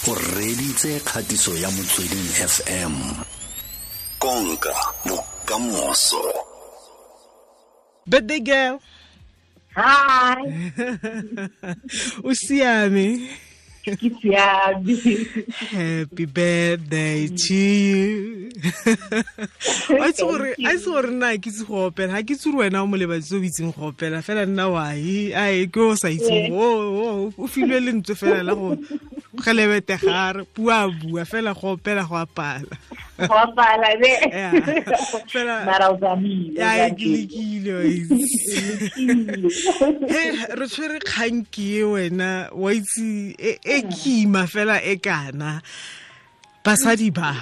O reditse kgatiso ya Motsweding FM. Konka bokamoso. Birthday girl. Hi. O siame. Ke siame. Happy birthday to you. A itse gore nna ke itse go opela, ga ke itse gore wena o molebatsi o itseng go opela, fela nna wa ai ke o sa itseng. O filwe lentswe fela la go gelebete gare bua bua fela go opela go apala. Go apala be. Fela mara o tsamile. Ya ke lekile. He re tshwere kgang ke wena wa itse e kima fela e kana basadi ba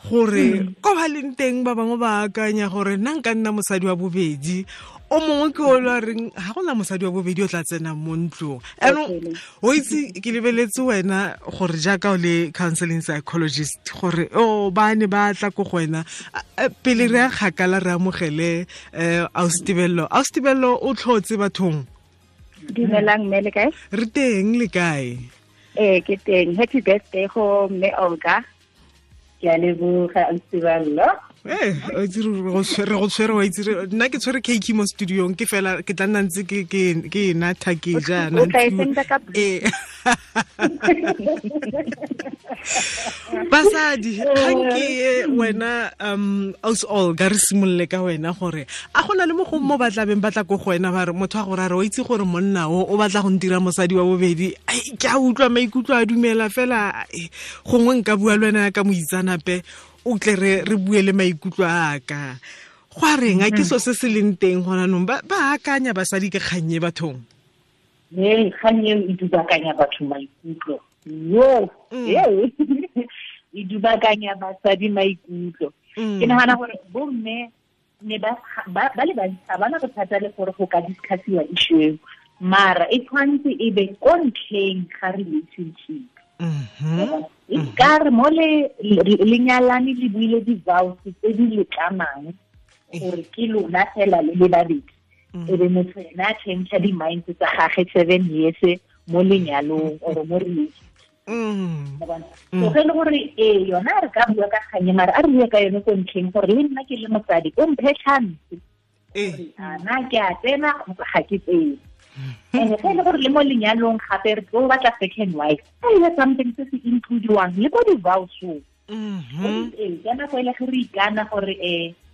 gore ko ba leng teng ba bangwe ba akanya gore nna nka nna mosadi wa bobedi, o mongwe ke o la reng ga gona mosadi wa bobedi o tla tsenang mo ntlong. Anong o itse ke lebeletse wena gore jaaka o le counseling psychologist gore o ba ne ba tla ko go wena pele re a kgakala re amogele Ausi Tebello o tlhotse bathong. Dumelang mme, le kae? Re teng, le kae? Ee, ke teng. Happy birthday go mme Olga. Ke a leboga Ausi Tebello. O itse re go tshwere, wa itse nna ke tshwere cake mo studiong ke fela ke tla nna ntse ke natha ke jaana. O tla e senda ka Basadi, kgang ke wena Ausi Olga re simolole ka wena gore a gona le mo go mo batla beng batla ko go wena ba re motho a gore a re o itse gore monna o batla go ntira mosadi wa bobedi, ke a utlwa maikutlo a dumela fela gongwe nka bua le wena ka moitsanape o tle re bue le maikutlo a ka. Go a reng a ke so se se leng teng gona nong ba akanya basadi ke kgannye bathong? Ee, kgang eo e dubakanya batho maikutlo. Yo, e dubakanya basadi maikutlo. Ke nagana gore bomme ne ba le bantsi ga bana bothata le gore go ka discussiwa issue eo, mara e tshwanetse e be ko ntlheng ga relationship. E ka re mo le lenyalane le buile di-vows tse di letlamang gore ke lona fela le le babedi, e be motho ena a change di-minds tsa gage 7 years mo lenyalong or mo relationship. So ge e le gore ee yona re ka bua ka kganye, mara a re bue ka yone ko ntlheng gore le nna ke le mosadi o mphe chance na ke a tsena kgotsa ga ke tsene. And ge e le gore le mo lenyalong gape re tlo batla second wife, a e something se se includiwang le ko di-vows-ong. Ee, ka nako e le ge re ikana gore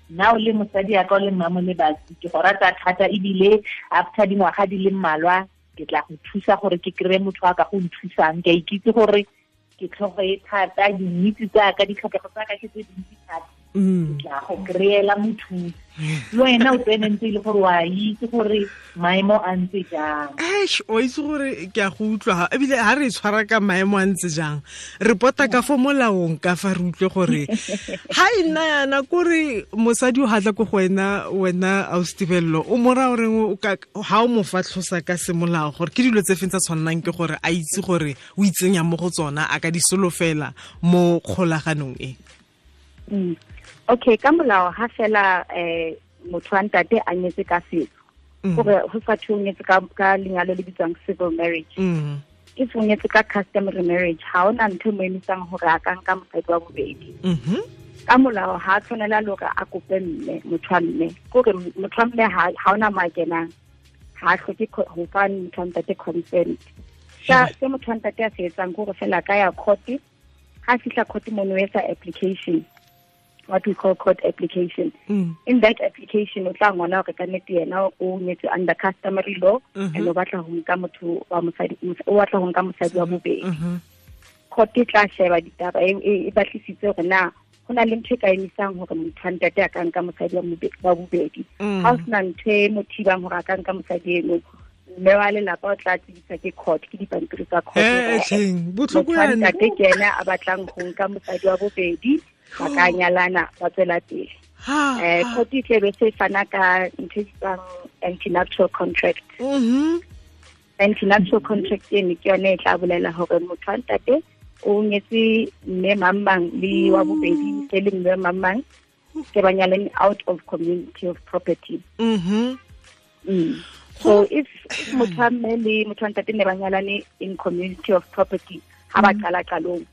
nna o le mosadi ya ka o le mmamo le batsi, ke go rata thata ebile after dingwaga di le mmalwa ke tla go thusa gore ke kry-e motho a ka go nthusang. Ke a ikitse gore ke tlhogo e thata, dinitse tsaka, ditlhokego tsaka ke tse dintsi thata, ke tla go kry-ela mothusi. Le wena o tsene ntse e le gore wa itse gore maemo a ntse jang. Eish, o itse gore ke a go utlwa ebile ha re tshwara ka maemo a ntse jang, re pota ka fo molaong ka fa re utlwe gore ha e nna yana kore mosadi o hatla ko go wena, wena Ausi Tebello o mo raya goreng ha o mo fa tlhosa ka semolao gore ke dilo tse feng tsa tshwannang ke gore a itse gore o itsenya mo go tsona, a ka di solofela mo kgolaganong e? Okay, ka molao ha fela motho wa ntate a nyetse ka setso, gore go sa thwe o nyetse ka lenyalo le bitswang civil marriage, if o nyetse ka customary marriage ha ona ntho e mo emisang gore a ka nka mosadi wa bobedi. Ka molao ha tshwanela le hore a kope mme, motho wa mme, kore motho wa mme ha ona mo a kenang, ha hloke ho fa motho wa ntate consent. Se motho wa ntate a se etsang kore fela ka ya court, ha fihla court mono o etsa application, what we call court application. In that application, o tla ngwana hore ka nnete yena o nyetse under customary law, and o batla ho nka motho wa mosadi, o batla ho nka mosadi wa bobedi. Court e tla sheba ditaba e batlisitse hore na ho na le ntho e ka emisang hore motho wa ntate a ka nka mosadi wa bobedi. Ha ho sena ntho e mo thibang hore a ka nka mosadi eno, mme wa lelapa o tla tsebisa ke court, ke dipampiri tsa court. Botlhoko yana. Ntate ke yena a batlang ho nka mosadi wa bobedi, ba ka nyalana ba tswela pele. Court e tle be se fana ka ntho e bitswang anti-nuptial contract. Anti-nuptial contract eno ke yone e tla bolela hore motho wa ntate o nyetse mme mang le wa bobedi se le mme mang ke ba nyalane out of community of property. So if motho wa mme le motho wa ntate ne ba nyalane in community of property, Ha ba qala qalong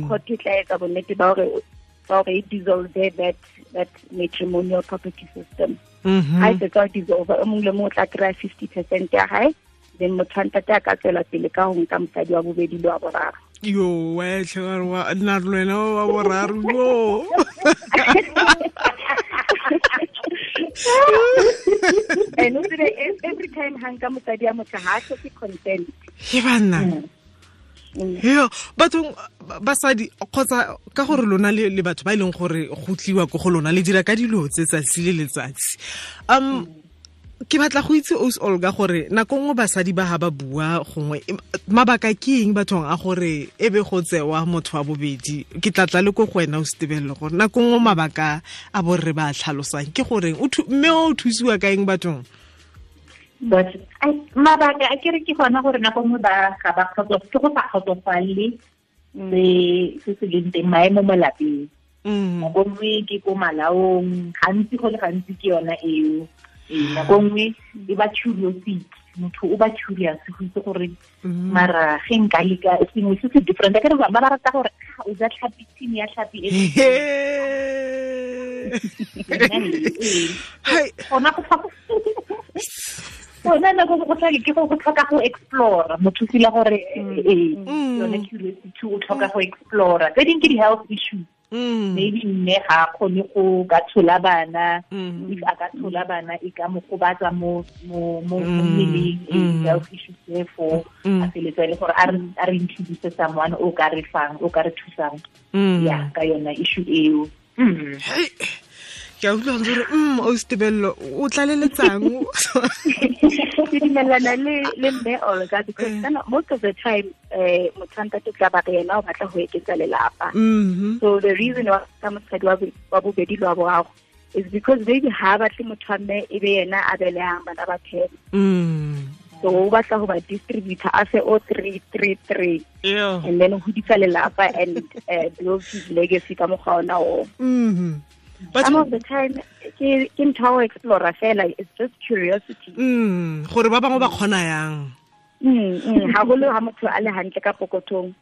court e tla etsa bonnete ba hore e dissolve that matrimonial property system. Ha e fetsa dissolve, o mong le mong o tla kry-a 50% ya hae, then motho wa ntate a ka tswela pele ka ho nka mosadi wa bobedi le wa boraro. Yo, wa nna le wena wa boraro yo. And every time ha nka mosadi ya motho ha hloke consent. Ke banna. Yo, batho basadi kgotsa ka gore lona le batho ba e leng gore go tliwa ko go lona le dira ka dilo tse tsatsi le letsatsi. Ke batla go itse Os Olga gore nako nngwe basadi ba ha ba bua gongwe mabaka ke eng bathong a gore e be go tsewa motho wa bobedi. Ke tlatla le ko go wena o Setebelelo gore nako nngwe mabaka a borre ba tlhalosang ke goreng mme o thusiwa ka eng bathong? But mabaka a kere ke gona gore nako nngwe ba ga ba ke go sa kgotsofalele se se leng teng maemo mo lapeng. Nako nngwe ke ko malaong, gantsi go le gantsi ke yona eo. Nako nngwe e ba curiosity, motho o ba curious go itse gore mara ge nka leka sengwe se se different. Akere ba rata gore o ja tlhapi, team ya tlhapi e gona go gona nako go tlhoka ke go tlhoka go explore, motho feel gore yone curiosity o tlhoka go explore. Tse dingwe ke di-health issues. Maybe mme ga kgone go ka tshola bana, if a ka tshola bana e ka mo gobatsa mo mmeleng, health issues therefore a feletsa e le gore a re introduce someone o ka re fang, o ka re thusang ya ka yona issue eo. Ke a utlwa gore o Setebelelo o tlaleletsang. Ke dumelana le mme Olga because most of the time motho wa ntate tla ba re yena o batla ho eketsa lelapa. So the reason why ka mosadi wa bobedi le wa boraro is because maybe ha batle motho wa mme e be yena a belehang bana ba 10. So o batla ho ba distributor a se o 3 3 3 and then ho hodisa lelapa and build his legacy ka mokgwa ona o. But some of the time ke ntho ya explore fela, it's just curiosity. Gore ba bangwe ba kgona yang. Haholo ha motho a le hantle ka pokothong.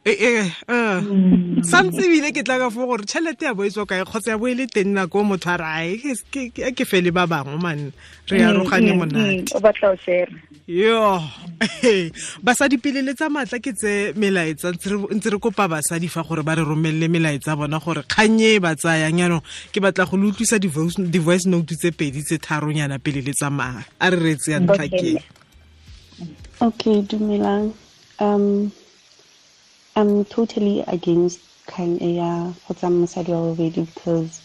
Santse ebile ke tla ka fo gore tšhelete ya bo e tswa kae kgotsa ya bo e le teng nako motho a re ai ke fele ba bangwe man re arogane monate. O batla o share. Yo. Basadi pele le tsa matla ke tse melaetsa ntse re kopa basadi fa gore ba re romelle melaetsa bona gore kganye ba tsayang yanong ke batla go le utlwisa di-voice note tse pedi tse tharonyana pele le tsamaya. A re retse ya ntlha ke. Okay, dumelang. I'm totally against kgang e ya go tsaya mosadi wa bobedi because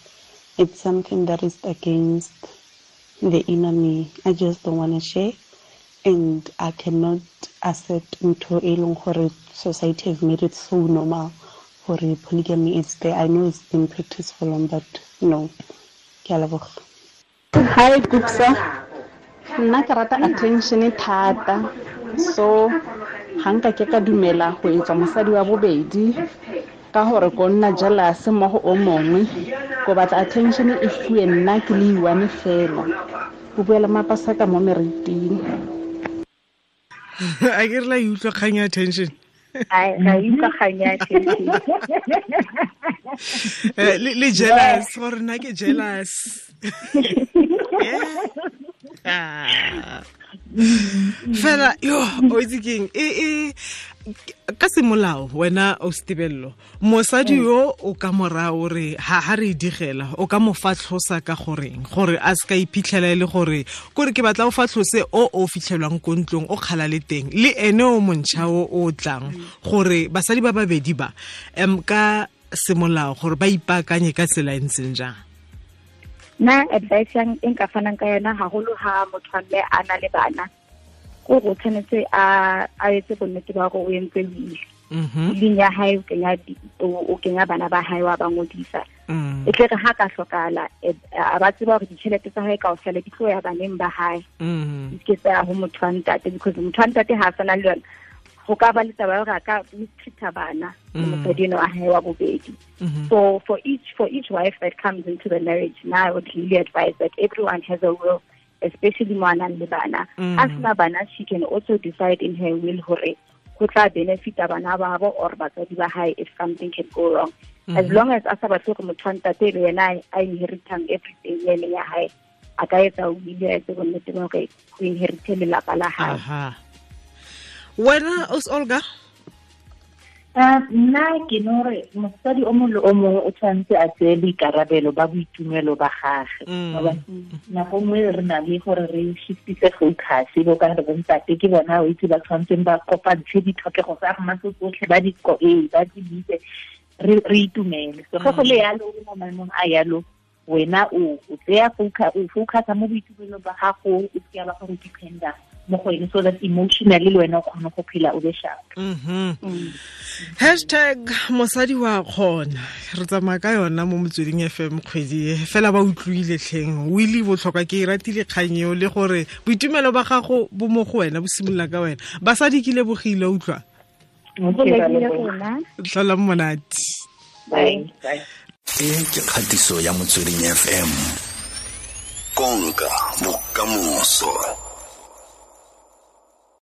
it's something that is against the inner me. I just don't want to share, and I cannot accept ntho e leng gore society has made it so normal gore polygamy is there. I know it's been practiced for long, but no. Ke a leboga. Hi, Gupsa. Nna ke rata attention thata, so ga nka ke ka dumela go etswa mosadi wa bobedi ka gore ko nna jealous mo go o mongwe, ko batla attention e fuwe nna ke le one fela. Go buela mapasa ka mo meriting. A ke re la utlwa kgang ya attention. Ai ga utlwa kgang ya attention. Le jealous gore nna ke jealous. Fela yo o itse keng e ka semolao wena o Setebelelo mosadi yo o ka morao re ha re digela o ka mo fatlhosa ka goreng gore a se ka iphitlhela e le gore kore ke batla o fatlhose o fitlhelwang ko ntlong o kgala le teng le ene o montšha o tlang gore basadi ba babedi ba ka semolao gore ba ipaakanye ka tsela e ntseng jang. Nna advice yang e nka fanang ka yona haholo ha motho wa mme a na le bana ko go tshwanetse a etse bonnete ba gore o entse will. Willing ya hae o kenya bana ba hae wa ba ngodisa. E tle re ha ka hlokahala a ba tseba gore ditjhelete tsa hae kaofela di tlo ya baneng ba hae. Di ke tsa ho motho wa ntate because motho wa ntate ha a sana le yona go ka ba le taba ya hore a ka mistreat bana le mosadi eno wa hae wa bobedi. So for each wife that comes into the marriage, now I would really advise that everyone has a will, especially mo a nang le bana. A sena bana, she can also decide in her will hore Go tla benefita bana ba bo or batsadi ba hae if something can go wrong. As long as a sa batle gore motho wa ntate e be yena a inheritang everything e leng ya hae, a ka etsa will a etse bonnete ba hore go inherite lelapa la hae. Wena os Olga? Nna ke no re mosadi o mongwe le o mongwe o tshwanetse a tseye boikarabelo ba boitumelo ba gagwe. Nako nngwe re na le gore re shiftise focus, bo ka re bontate ke bona o itse ba tshwanetseng ba kopantshe ditlhokego tsa rona tse tsotlhe, ba di ba di bitse, re itumele. So ge go le yalo, o mo maemong a yalo, wena o tseya focus, o focusa mo boitumelong ba gago, o seke ba gore dependa mo go ene, so that emotionally le wena o kgone go phela o be sharp. #mosadi wa kgona, re tsamaya ka yona mo Motsweding FM kgwedi e fela. Ba utlwile tlheng wili botlhokwa, ke e ratile kgang eo, le gore boitumelo ba gago bo mo go wena, bo simolola ka wena. Basadi ke lebogile, utlwa tlhola monate. Bye. E ke kgatiso ya Motsweding FM, konka bokamoso.